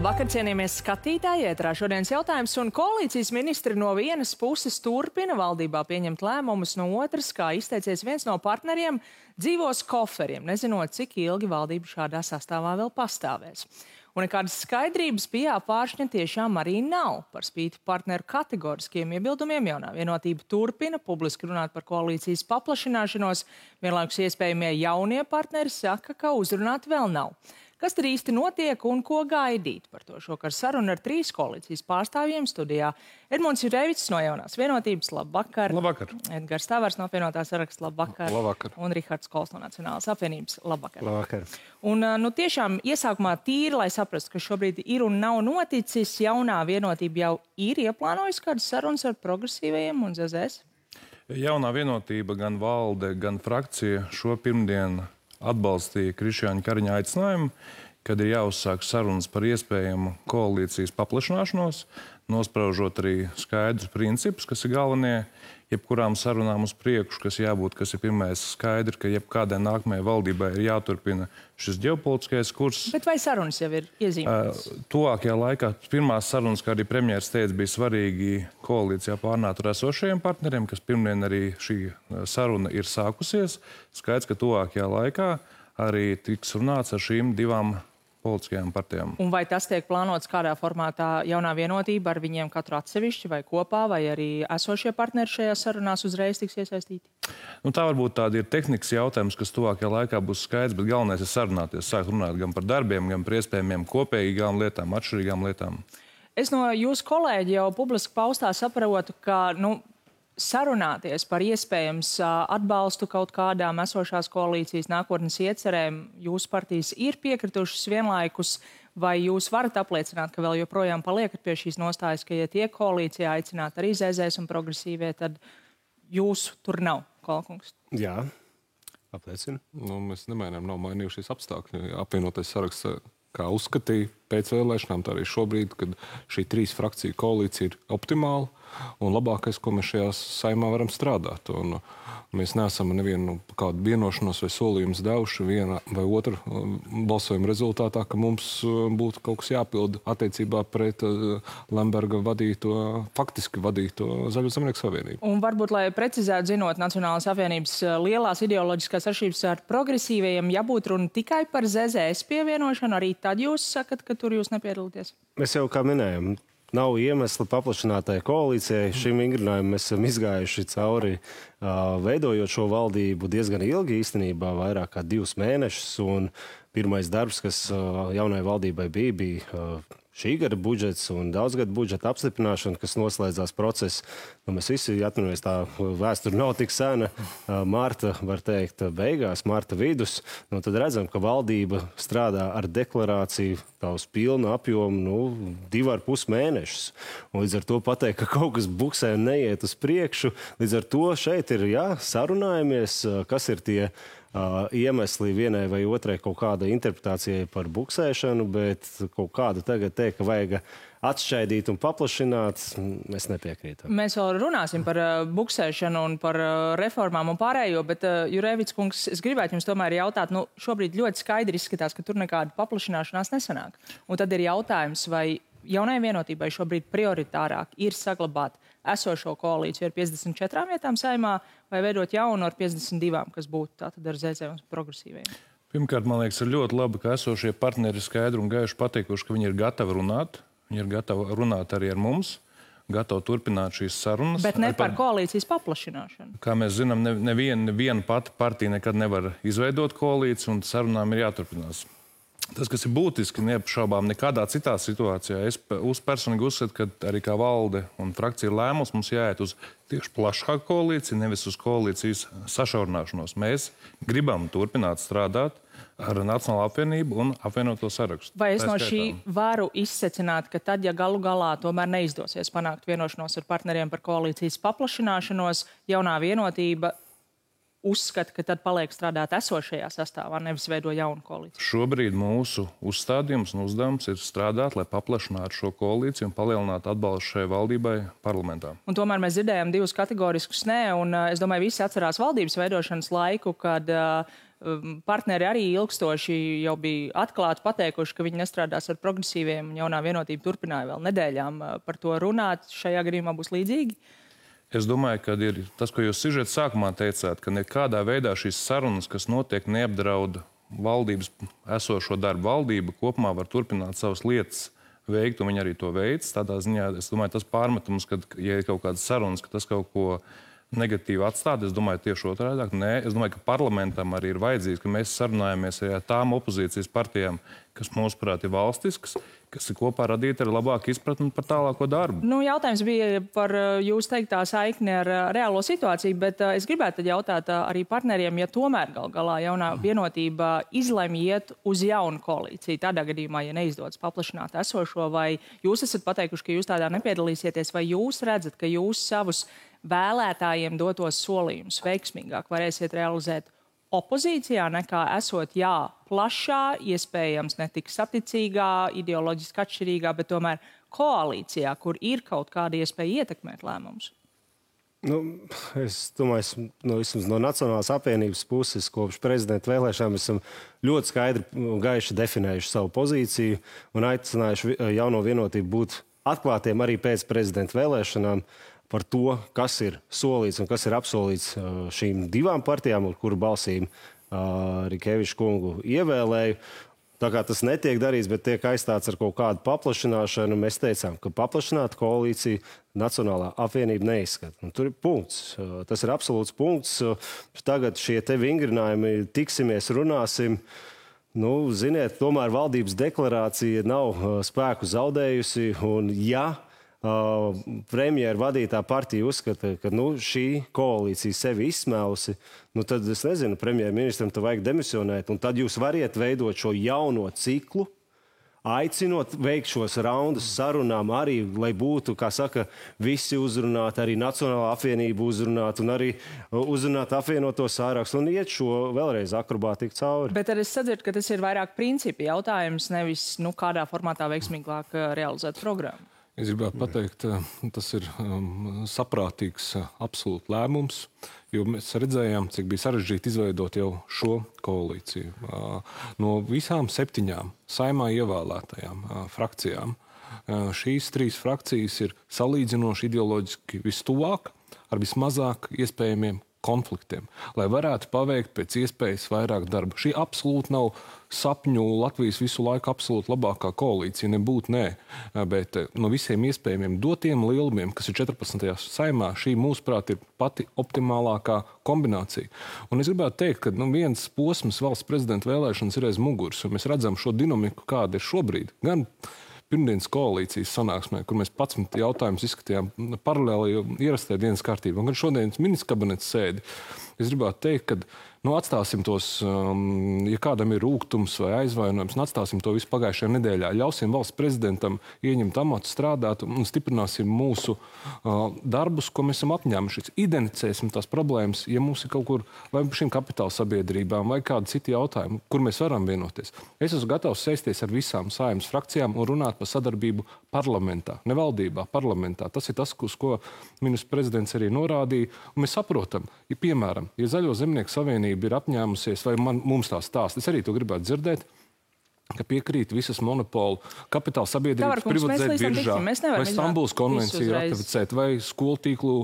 Labvakar, cienījamies skatītāji, ētrā šodienas jautājums, un koalīcijas ministri no vienas puses turpina valdībā pieņemt lēmumus, no otras, kā izteicies viens no partneriem, dzīvos koferiem, nezinot, cik ilgi valdība šādā sastāvā vēl pastāvēs. Un nekādas skaidrības pie Apvāršņa tiešām arī nav. Par spīti partneru kategoriskiem iebildumiem Jaunā Vienotība turpina publiski runāt par koalīcijas paplašināšanos, vienlaikus iespējamie jaunie partneri saka, ka uzrunāt vēl nav. Kas tad īsti notiek un ko gaidīt? Par to šokar saruna ar 3 koalīcijas pārstāvjiem studijā. Edmunds Jurevics no Jaunās Vienotības, labvakar. Labvakar. Edgars Tavars no Apvienotā saraksta, labvakar. Labvakar. Un Rihards Kols no Nacionālās apvienības, labvakar. Labvakar. Un tiešām iesākumā tīri, lai saprastu, ka šobrīd ir un nav noticis, Jaunā Vienotība jau ir ieplānojusi kādas sarunas ar progresīvajiem un ZZS? Jaunā Vienotība, gan valde, gan frakcija šo pirmdienu atbalstīja Krišjāņa Kariņa aicinājumu, kad ir jāuzsāk sarunas par iespējamu koalīcijas paplašināšanos, nospraužot arī skaidrus principus, kas ir galvenie jebkurām sarunām uz priekšu, kas jābūt, kas ir pirmais skaidri, ka jebkādai nākamajai valdībai ir jāturpina šis ģeopolitiskais kurs. Bet vai sarunas jau ir iezīmētas? Tuvākajā laikā pirmās sarunas, kā arī premjeras teica, bija svarīgi koalīcijā pārnāt ar esošajiem partneriem, kas pirmdien arī šī saruna ir sākusies. Skaidrs, ka tuvākajā laikā arī tiks runāts ar šīm 2 politiskajām partijām. Un vai tas tiek plānots kādā formātā Jaunā Vienotība ar viņiem katru atsevišķi vai kopā, vai arī esošie partneri šajās sarunās uzreiz tiks iesaistīti? Tā varbūt tāda ir tehnikas jautājums, kas tuvākajā laikā būs skaidrs, bet galvenais ir sarunāties, sākt runāt gan par darbiem, gan par iespējamiem kopīgām lietām, atšķirīgām lietām. Es no jūsu kolēģi jau publiski paustā saprotu, ka, sarunāties par iespējams atbalstu kaut kādām esošās koalīcijas nākotnes iecerēm, jūsu partijas ir piekritušas vienlaikus, vai jūs varat apliecināt, ka vēl joprojām paliekat pie šīs nostājas, ka, ja tiek koalīcijā aicināt arī ZZS un progresīvie, tad jūsu tur nav, Kolkungs? Jā, apliecinu. Mēs nemainām, nav mainījušies apstākļi. Apvienotais saraksts, kā uzskatīja pēc vēlēšanām, tā arī šobrīd, kad šī 3 frakciju koalīcija ir optimāla un labākais, ko mēs šajā saimā varam strādāt. Un mēs neesam nevienu kādu vienošanos vai solījumus devuši viena vai otra balsojuma rezultātā, ka mums būtu kaut kas jāpilda attiecībā pret Lemberga faktiski vadīto Zaļo zemnieku savienību. Un varbūt, lai precizētu, zinot Nacionālās apvienības lielās ideoloģiskās atšķirības ar progresīvajiem, ja būtu runa tikai par ZZS pievienošanu, arī tad jūs sakat, ka tur jūs nepiedalīties? Mēs jau kā minējam, nav iemesla paplašinātajai koalīcijai. Šim vingrinājumam mēs esam izgājuši cauri, veidojot šo valdību diezgan ilgi, īstenībā vairāk kā 2 mēnešus. Un pirmais darbs, kas jaunai valdībai bija šī gada budžets un daudzgada budžeta apstiprināšana, kas noslēdzās process. Mēs visi atminamies, tā vēsture nav tik sena. Marta, var teikt, beigās, marta vidus. Tad redzam, ka valdība strādā ar deklarāciju tā uz pilnu apjomu 2,5 mēnešus. Un līdz ar to pateikt, ka kaut kas buksē un neiet uz priekšu. Līdz ar to šeit ir sarunājamies, kas ir tie iemesli vienai vai otrai kaut kāda interpretācijai par buksēšanu, bet kaut kādu tagad teikt, ka vajag atšķaidīt un paplašināt, mēs nepiekrītam. Mēs vēl runāsim par buksēšanu un par reformām un pārējo, bet Jurevics kungs, es gribētu jums tomēr jautāt, šobrīd ļoti skaidri izskatās, ka tur nekāda paplašināšanās nesanāk. Un tad ir jautājums, vai Jaunai Vienotībai šobrīd prioritārāk ir saglabāt esošo koalīciju ar 54 vietām saimā vai veidot jaunu ar 52, kas būtu tātad ar ZZ un progresīviem? Pirmkārt, man liekas, ir ļoti labi, ka esošie partneri skaidri un gaiši pateikuši, ka viņi ir gatavi runāt. Viņi ir gatavi runāt arī ar mums, gatavi turpināt šīs sarunas. Bet ne par koalīcijas paplašināšanu. Kā mēs zinām, neviena pati partija nekad nevar izveidot koalīciju, un sarunām ir jāturpinās. Tas, kas ir būtiski, neapšaubām nekādā citā situācijā, es personīgi uzskatu, ka arī kā valde un frakcija ir lēmums, mums jāiet uz tieši plašāku koalīciju, nevis uz koalīcijas sašaurināšanos. Mēs gribam turpināt strādāt ar Nacionālo apvienību un apvienoto sarakstu. Vai es no šī varu izsecināt, ka tad, ja galu galā tomēr neizdosies panākt vienošanos ar partneriem par koalīcijas paplašināšanos, Jaunā Vienotība uzskata, ka tad paliek strādāt esošajā sastāvā, nevis veido jaunu koalīciju? Šobrīd mūsu uzstādījums un uzdevums ir strādāt, lai paplašinātu šo koalīciju un palielinātu atbalstu šai valdībai parlamentā. Un tomēr mēs dzirdējām 2 kategoriskus nē, un es domāju, visi atcerās valdības veidošanas laiku, kad partneri arī ilgstoši jau bija atklāti pateikuši, ka viņi nestrādās ar progresīviem, un jaunā vienotība turpināja vēl nedēļām par to runāt. Šajā gadījumā būs līdzīgi? Es domāju, ka ir tas, ko jūs sižeta sākumā teicāt, ka nekādā veidā šīs sarunas, kas notiek, neapdrauda valdības esošo darbu. Valdība kopumā var turpināt savas lietas veikt, un viņi arī to veic. Tādā ziņā, es domāju, tas pārmetums, ka, ja ir kaut kādas sarunas, ka tas kaut ko negatīvi atstāt, es domāju, tieši otrādāk. Nē, es domāju, ka parlamentam arī ir vajadzīgs, ka mēs sarunājamies ar tām opozīcijas partijām, kas, mūsuprāt, ir valstiskas, kas ir kopā radīta ar labāku izpratni par tālāko darbu. Nu, jautājums bija par jūs teiktā saikni ar reālo situāciju, bet es gribētu jautāt arī partneriem, ja tomēr gal galā jaunā vienotība izlemj iet uz jaunu koalīciju. Tādā gadījumā, ja neizdodas paplašināt esošo, vai jūs esat pateikuši, ka jūs tādā nepiedalīsieties, vai jūs redzat, ka jūs savus vēlētājiem dotos solījumus veiksmīgāk varēsiet realizēt opozīcijā nekā esot, plašā, iespējams netik saticīgā, ideoloģiski atšķirīgā, bet tomēr koalīcijā, kur ir kaut kāda iespēja ietekmēt lēmumus? Nu, es domāju, no Nacionālās apvienības puses kopš prezidenta vēlēšanām esam ļoti skaidri un gaiši definējuši savu pozīciju un aicinājuši jauno vienotību būt atklātiem arī pēc prezidenta vēlēšanām par to, kas ir solīts un kas ir apsolīts šīm divām partijām, ar kuru balsīm Rikeviča kungu ievēlēju. Tā kā tas netiek darīts, bet tiek aizstāts ar kaut kādu paplašināšanu, mēs teicām, ka paplašināt koalīciju Nacionālā apvienība neizskata. Un tur ir punkts. Tas ir absolūts punkts. Tagad šie te vingrinājumi, tiksimies, runāsim. Nu, ziniet, tomēr valdības deklarācija nav spēku zaudējusi, un premjera vadītā partija uzskata, ka šī koalīcija sevi izsmēlusi, tad es nezinu, premjerministram te vajag demisionēt, un tad jūs variet veidot šo jauno ciklu, aicinot veikt šos raundus sarunām arī, lai būtu, kā saka, visi uzrunāti, arī Nacionālā apvienība uzrunāt, un arī uzrunāt apvienoto sārakstu, un iet šo vēlreiz akrobātiku cauri. Bet arī es sadzirdu, ka tas ir vairāk principi jautājums, nevis kādā formātā veiksmīgāk realizēt programmu. Es gribētu pateikt, tas ir saprātīgs absolūts lēmums, jo mēs redzējām, cik bija sarežģīti izveidot jau šo koalīciju. No visām 7 saimā ievēlētajām frakcijām šīs 3 frakcijas ir salīdzinoši ideoloģiski vistuvāk ar vismazāk iespējamiem konfliktiem, lai varētu paveikt pēc iespējas vairāk darba. Šī absolūti nav sapņu Latvijas visu laiku absolūti labākā koalīcija, nebūtu nē, bet no visiem iespējamiem dotiem lielumiem, kas ir 14. saimā, šī mūsuprāt ir pati optimālākā kombinācija. Un es gribētu teikt, ka viens posms valsts prezidenta vēlēšanas ir aiz muguras, un mēs redzam šo dinamiku, kāda ir šobrīd. Gan pirmdienas koalīcijas sanāksmē, kur mēs 11 jautājumus izskatījām paralēli ierastai dienas kārtībā, un gan šodienas ministra kabineta sēdi. Es gribētu teikt, ka atstāsim tos, ja kādam ir rūgtums vai aizvainojums, atstāsim to visu pagājušajā nedēļā. Ļausim valsts prezidentam ieņemt amatu, strādāt un stiprināsim mūsu darbus, ko mēs esam apņēmušies. Identificēsim tās problēmas, ja mums ir kaut kur vai šīm kapitāla sabiedrībām vai kādi citi jautājumi, kur mēs varam vienoties. Es esmu gatavs sēsties ar visām saimnes frakcijām un runāt par sadarbību parlamentā, ne valdībā, parlamentā. Tas ir tas, uz ko ministrs prezidents arī norādīja. Un mēs saprotam, ja piemēram, ja Zaļo zemnieku savienība ir apņēmusies, vai mums tā stāsta, es arī to gribētu dzirdēt, ka piekrīt visas monopolu kapitāla sabiedrības privatizēt biržā, vai Stambulas konvenciju ratificēt, vai skolu tīklu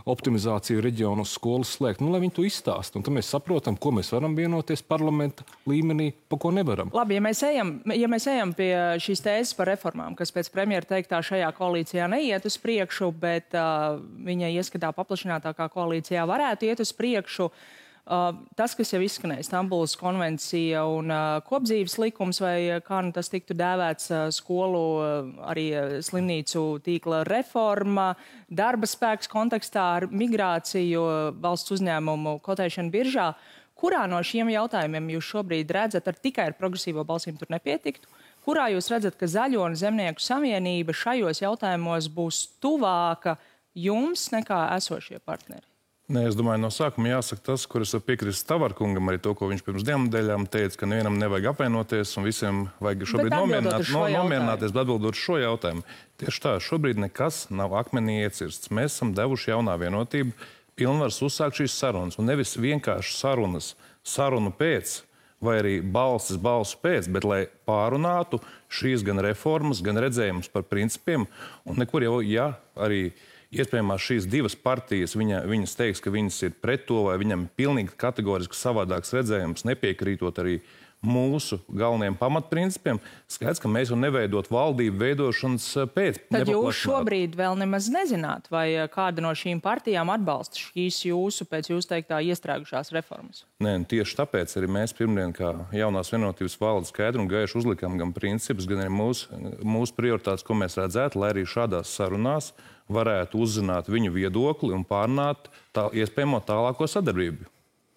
optimizāciju reģionos skolas slēgt. Lai viņi to izstāst. Un tad mēs saprotam, ko mēs varam vienoties parlamenta līmenī, pa ko nevaram. Labi, ja mēs ejam pie šīs tēzes par reformām, kas pēc premjera teiktā šajā koalīcijā neiet uz priekšu, bet viņa ieskatā paplašinātākā koalīcijā varētu iet uz priekšu. Tas, kas jau izskanēja, Stambulas konvencija un kopdzīves likums, vai kā tas tiktu dēvēts, skolu, arī slimnīcu tīkla reforma, darba spēks kontekstā ar migrāciju, valsts uzņēmumu kotēšanu biržā. Kurā no šiem jautājumiem jūs šobrīd redzat, tikai ar progresīvo balsīm tur nepietiktu? Kurā jūs redzat, ka Zaļo un Zemnieku savienība šajos jautājumos būs tuvāka jums nekā esošie partneri? Nē, es domāju, no sākuma jāsaka tas, kur es piekrītu Tavarkungam, arī to, ko viņš pirms 2 nedēļām teica, ka nevienam nevajag apvienoties un visiem vajag šobrīd nomierināties, bet atbildot šo jautājumu. Tieši tā, šobrīd nekas nav akmenī iecirsts. Mēs esam devuši jaunā vienotību pilnvars uzsākt šīs sarunas. Un nevis vienkārši sarunu pēc, vai arī balsu pēc, bet lai pārunātu šīs gan reformas, gan redzējumus par principiem. Un nekur jau, ja arī iespējamās šīs divas partijas, viņas teiks, ka viņas ir pret to, vai viņam ir pilnīgi kategoriski savādāks redzējums, nepiekrītot arī mūsu galvenajiem pamatprincipiem, skaidrs, ka mēs jau neveidot valdību veidošanas pēc. Tad jūs šobrīd vēl nemaz nezināt, vai kāda no šīm partijām atbalsta šīs pēc jūsu teiktā iestrēgušās reformas? Nē, tieši tāpēc arī mēs pirmdien, kā jaunās vienotības valde, skaidri un gaiši uzlikām gan principus, gan arī mūsu prioritātes, ko mēs redzētu, lai arī šādās sarunās varētu uzzināt viņu viedokli un pārnāt iespējamo tālāko sadarbību.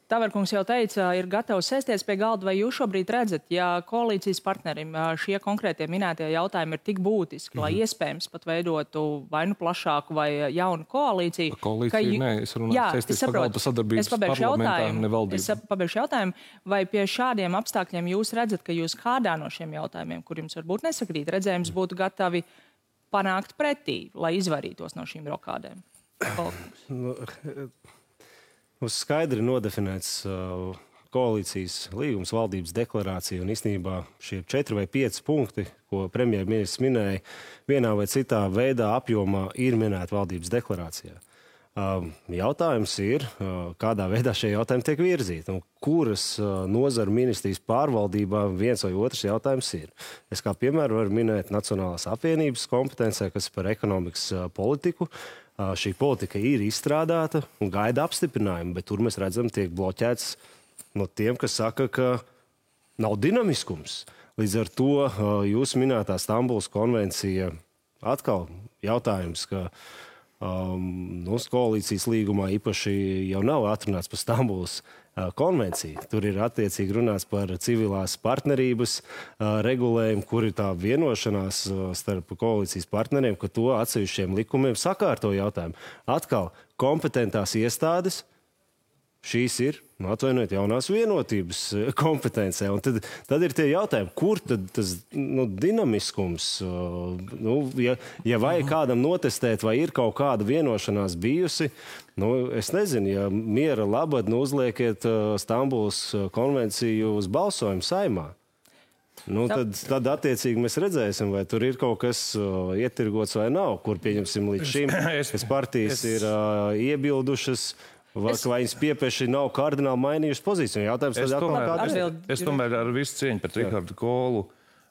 Taverkungs jau teica, ir gatavs sēsties pie galda, vai jūs šobrīd redzat, ja koalīcijas partnerim šie konkrētie minētie jautājumi ir tik būtiski, lai iespējams pat veidotu vai nu plašāku vai jaunu koalīciju? Koalīcija, nē, es runāju sēsties pie galda sadarbības parlamentā, ne valdību. Es pabeigšu jautājumu, vai pie šādiem apstākļiem jūs redzat, ka jūs kādā no šiem jautājumiem, kur jums varbūt nesakrīt redzējums, būtu gatavi panākt pretī, lai izvairītos no šīm rokādēm? Mums skaidri nodefinēts koalīcijas līgums, valdības deklarācija un īstenībā šie 4 vai 5 punkti, ko premjerministrs minēja, vienā vai citā veidā apjomā ir minēti valdības deklarācijā. Jautājums ir, kādā veidā šie jautājumi tiek virzīti un kuras nozaru ministrijas pārvaldībā viens vai otrs jautājums ir. Es kā piemēru varu minēt Nacionālās apvienības kompetencē, kas par ekonomikas politiku. Šī politika ir izstrādāta un gaida apstiprinājumu, bet tur mēs redzam, tiek bloķēts no tiem, kas saka, ka nav dinamiskums. Līdz ar to jūs minētā Stambulas konvencija atkal jautājums, ka koalīcijas līgumā īpaši jau nav atrunāts par Stambulas konvenciju. Tur ir attiecīgi runāts par civilās partnerības regulējumu, kur ir tā vienošanās starp koalīcijas partneriem, ka to atsevišķiem likumiem sakārto jautājumu. Atkal kompetentās iestādes, šīs ir, atvainojiet, jaunās vienotības kompetencē. Un tad ir tie jautājumi, kur tad tas dinamiskums, ja vajag kādam notestēt, vai ir kaut kāda vienošanās bijusi, es nezinu, ja miera labad uzliekiet Stambulas konvenciju uz balsojumu Saeimā. Tad attiecīgi mēs redzēsim, vai tur ir kaut kas ietirgots vai nav, kur pieņemsim līdz šim, kas partijas ir iebildušas, vai viņas piepieši nav kardināli mainījušas pozīciju. Es tomēr ar visu cieņu pret Rihardu Kolu,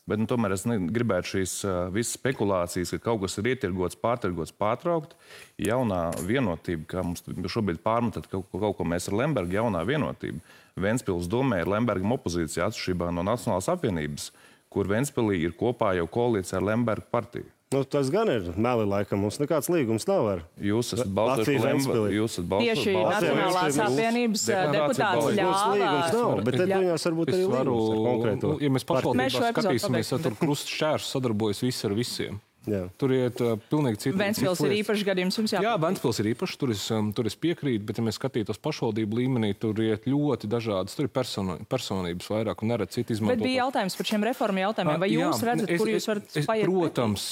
bet tomēr es gribētu šīs visas spekulācijas, ka kaut kas ir ietirgots, pārtirgots, pārtraukt. Jaunā vienotība, kā mums šobrīd pārmetat kaut ko mēs ar Lembergu, jaunā vienotība. Ventspils domē ir Lembergam opozīcija atšķirībā no Nacionālās apvienības, kur Ventspilī ir kopā jau koalīcija ar Lembergu partiju. Tas gan ir meli, laikam. Mums nekāds līgums nav ar Jūs esat balsojuši par Lembergu. Tieši Nacionālās apvienības deputāts ļāvā. Līgums nav, bet tad viņās varbūt arī līgums ar konkrēto. Ja mēs pašvaldībā skatīsimies, tad tur krusts šķērs sadarbojas visi ar visiem. Jā. Tur iet pilnīgi citi. Ventspils ir īpašs gadījums, jums jāpiekrīt. Jā, Ventspils ir īpašs, tur es piekrītu, bet ja mēs skatītos pašvaldību līmenī, tur iet ļoti dažādas, tur ir personības vairāk un neredz citu izmantot. Bet bija jautājums par šiem reformu jautājumiem, vai jūs redzat, kur jūs varat paiet? Protams,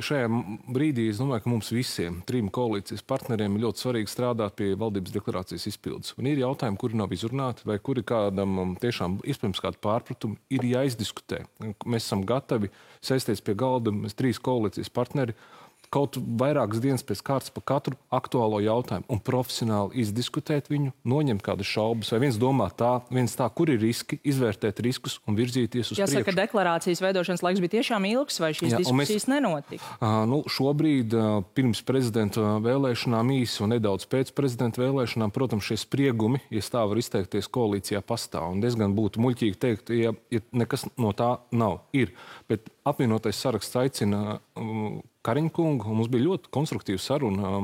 šajā brīdī es domāju, ka mums visiem, 3 koalīcijas partneriem ir ļoti svarīgi strādāt pie valdības deklarācijas izpildes. Un ir jautājumi, kuri nav izrunāti, vai kuri kādam tiešām iespējams kādu pārpratumu ir jāizdiskutē. Mēs esam gatavi sēsties pie galda, mēs 3 koalīcijas partneri, kaut vairākas dienas pēc kārtas par katru aktuālo jautājumu un profesionāli izdiskutēt viņu, noņemt kādas šaubas, vai viens domā tā, viens tā, kur ir riski, izvērtēt riskus un virzīties uz priekšu. Jāsaka, deklarācijas veidošanas laiks bija tiešām ilgs, vai šīs diskusijas nenotika? Šobrīd pirms prezidenta vēlēšanām īsi un nedaudz pēc prezidenta vēlēšanām, protams, šie spriegumi, ja tā var izteikties, koalīcijā pastāv. Un diezgan būtu muļķīgi teikt, ja nekas no tā nav. Ir, bet apvienotais saraksts aicina Kariņa kungu, un mums bija ļoti konstruktīva saruna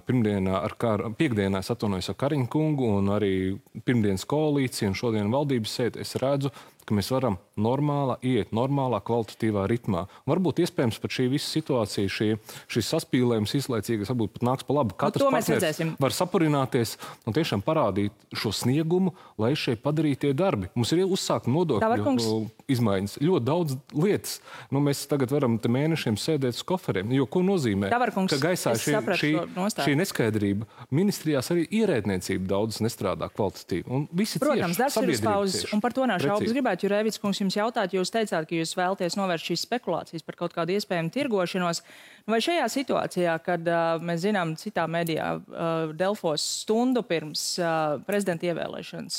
piekdienā atvainojos ar Kariņa kungu un arī pirmdienas koalīciju un šodien valdības sēdi. Es redzu ka mēs varam iet normālā, kvalitatīvā ritmā. Varbūt iespējams pat šī visa situācija, šis saspīlējums izlaicīgas, varbūt pat nāks pa labu. Katrs partners var sapurināties un tiešām parādīt šo sniegumu, lai šeit padarītie darbi. Mums ir uzsākt nodokļu izmaiņas. Ļoti daudz lietas. Mēs tagad varam te mēnešiem sēdēt uz koferiem. Jo ko nozīmē? Ka gaisā šī neskaidrība. Ministrijās arī ierēdniecība daudz nestrādā kvalitatīvi. Un visi protams, darbs ir uz pauzes, un par to nav šaubas. Gribētu, Jurēvics kungs, jums jautāt, jūs teicāt, ka jūs vēlaties novērst šīs spekulācijas par kaut kādu iespējamu tirgošanos. Vai šajā situācijā, kad mēs zinām citā medijā, Delfos stundu pirms prezidenta ievēlēšanas,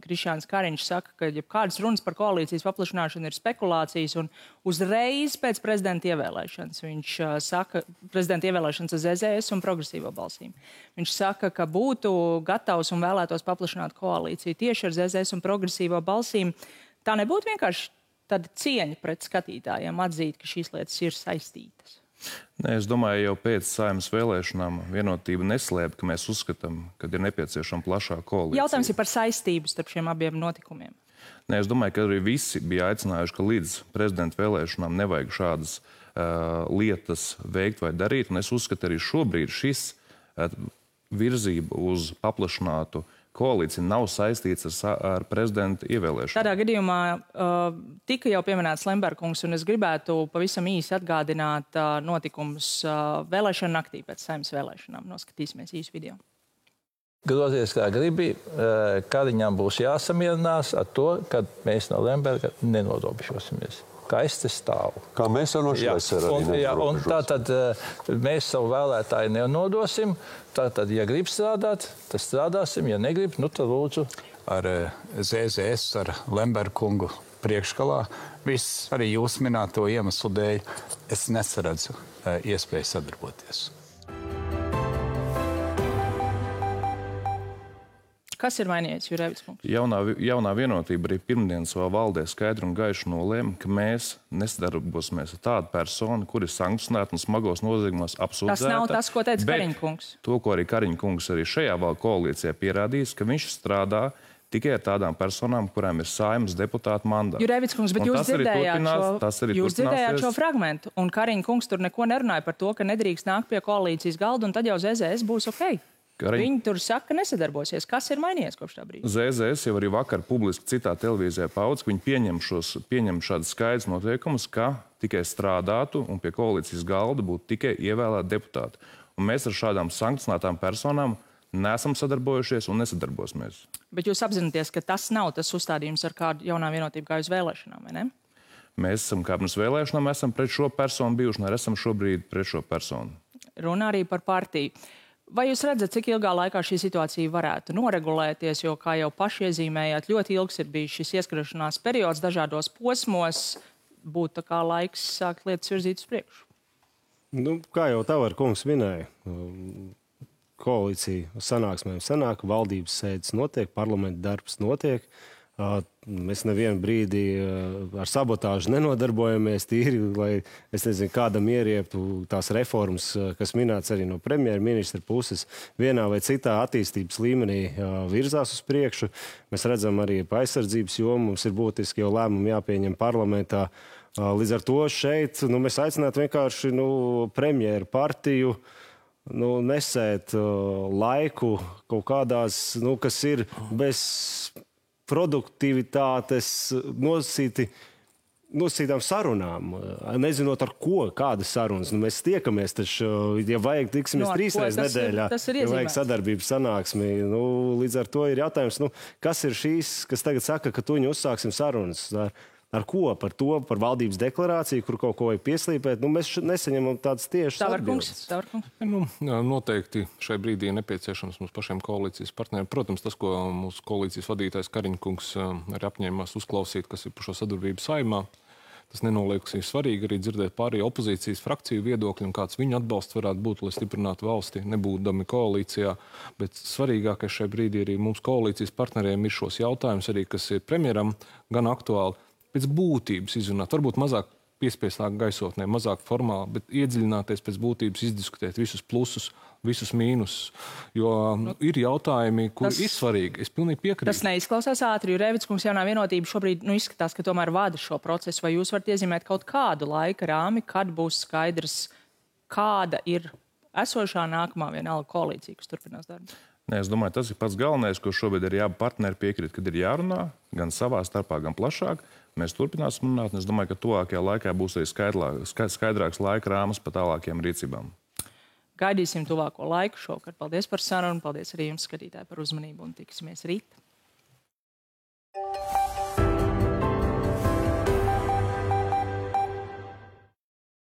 Krišjāns Kariņš saka, ka jebkādas runas par koalīcijas paplašināšanu ir spekulācijas, un uzreiz pēc prezidenta ievēlēšanas viņš saka, prezidenta ievēlēšanas ar ZZS un progresīvo balsīm. Viņš saka, ka būtu gatavs un vēlētos paplašināt koalīciju tieši ar ZZS un progresīvo balsīm. Tā nebūtu vienkārši tāda cieņa pret skatītājiem atzīt, ka šīs lietas ir saistītas. Nē, es domāju, jau pēc Saeimas vēlēšanām Vienotība neslēpj, ka mēs uzskatām, ka ir nepieciešama plašāka koalīcija. Jautājums ir par saistību starp šiem abiem notikumiem. Nē, es domāju, ka arī visi bija aicinājuši, ka līdz prezidenta vēlēšanām nevajag šādas lietas veikt vai darīt. Un es uzskatu, arī šobrīd šis virzība uz paplašinātu koalīcija nav saistīts ar prezidenta ievēlēšanu. Tādā gadījumā tika jau pieminēts Lemberkungs, un es gribētu pavisam īsi atgādināt notikumus vēlēšanu naktī pēc Saeimas vēlēšanām. Noskatīsimies īsu video. Grozies kā gribi, Kariņam būs jāsamierinās ar to, ka mēs no Lemberga nenorobežosimies. Kā es te stāvu. Kā mēs jau no šīs arī un tātad mēs savu vēlētāju nenodosim. Tātad, ja grib strādāt, tad strādāsim. Ja negrib, tad lūdzu. Ar ZZS, ar Lemberkungu priekškalā, viss arī jūs minēto iemeslu dēļ, es nesaredzu iespēju sadarboties. Kas ir mainījies, Jurēvics kungs? Jaunā Vienotība arī pirmdien savā valdē skaidri un gaiši nolēma, ka mēs nesadarbosimies ar tādu personu, kur ir sankcionēta un smagos noziegumos apsūdzēta. Tas nav tas, ko teica Kariņa kungs. To, ko arī Kariņa kungs arī šajā koalīcijā pierādījis, ka viņš strādā tikai ar tādām personām, kurām ir Saeimas deputāta mandāts. Jurēvics kungs, bet jūs dzirdējāt šo fragmentu, un Kariņa kungs tur neko nerunāja par to, ka nedrīkst nākt pie koalīcijas galda, un tad jau ZZS būs ok. Viņi tur saka, ka nesadarbosies. Kas ir mainījies kopš tā brīža? ZZS jau arī vakar publiski citā televīzijā paudz, ka viņi pieņem šādus skaidrus noteikumus, ka tikai strādātu un pie koalīcijas galda būtu tikai ievēlēti deputāti. Un mēs ar šādām sankcionētām personām neesam sadarbojušies un nesadarbosimies. Bet jūs apzināties, ka tas nav tas uzstādījums, ar kādu Jaunā Vienotība gāja uz vēlēšanām, vai ne? Mēs esam kā pirms vēlēšanām, esam pret šo personu bijuši, un arī esam šobrīd pret šo personu. Runā arī par partiju. Vai jūs redzat, cik ilgā laikā šī situācija varētu noregulēties, jo, kā jau paši iezīmējāt, ļoti ilgs ir bijis šis ieskriešanās periods dažādos posmos, būtu tā kā laiks sākt lietas virzīt uz priekšu? Kā jau Tavar kungs minēja, koalīcija sanāksmēm sanāk, valdības sēdes notiek, parlamenta darbs notiek. Mēs nevienu brīdi ar sabotāžu nenodarbojamies tīri, lai, es nezinu, kādam ierieptu tās reformas, kas minēts arī no premjerministra puses, vienā vai citā attīstības līmenī virzās uz priekšu. Mēs redzam arī pa aizsardzības jomu, mums ir būtiski jau lēmumi jāpieņem parlamentā. Līdz ar to šeit mēs aicinātu vienkārši premjeru partiju nesēt laiku kaut kādās, kas ir bez produktivitātes nosītām sarunām, nezinot ar ko, kādas sarunas. Mēs tiekamies taču, ja vajag, tiksimies 3 reizes nedēļā, ja vajag sadarbības sanāksmi. Līdz ar to ir jautājums, kas ir šīs, kas tagad saka, ka tuņi uzsāksim sarunas. Ar ko? Par to, par valdības deklarāciju, kur kaut ko vajag pieslīpēt. Mēs nesaņemam tādas tiešas atbildes. Noteikti šai brīdī ir nepieciešams mums pašiem koalīcijas partneriem. Protams, tas, ko mūsu koalīcijas vadītājs Kariņa kungs arī apņēmās uzklausīt, kas ir par šo sadarbību Saeimā, tas nenoliek, ir svarīgi arī dzirdēt pārējo opozīcijas frakciju viedokļu un kāds viņu atbalsts varētu būt, lai stiprinātu valsti, nebūdami koalīcijā. Bet svarīgākais šai brīdī arī mums koalīcijas partneriem ir šos jautājumus arī, kas ir premjeram gan aktuāli, pēc būtības izrunāt. Varbūt mazāk piespiestāk gaisotnē, mazāk formāli, bet iedziļināties pēc būtības, izdiskutēt visus plusus, visus mīnusus. Jo ir jautājumi, kuri ir svarīgi. Es pilnīgi piekrītu. Tas neizklausās ātri, jo Rēvids kungs jaunā vienotība šobrīd izskatās, ka tomēr vada šo procesu. Vai jūs varat iezīmēt kaut kādu laika rāmi, kad būs skaidrs, kāda ir esošā nākamā vienalga koalīcija, kas turpinās darbu? Nē, es domāju, tas ir pats galvenais, ko šobrīd ir jābūt partneri piekrīt, kad ir jārunā gan savā starpā, gan plašāk. Mēs turpināsim runāt, un es domāju, ka tuvākajā laikā būs arī skaidrāks laika rāmas par tālākiem rīcībām. Gaidīsim tuvāko laiku šovakar. Paldies par sarunu, paldies arī jums, skatītāji, par uzmanību un tiksimies rīt.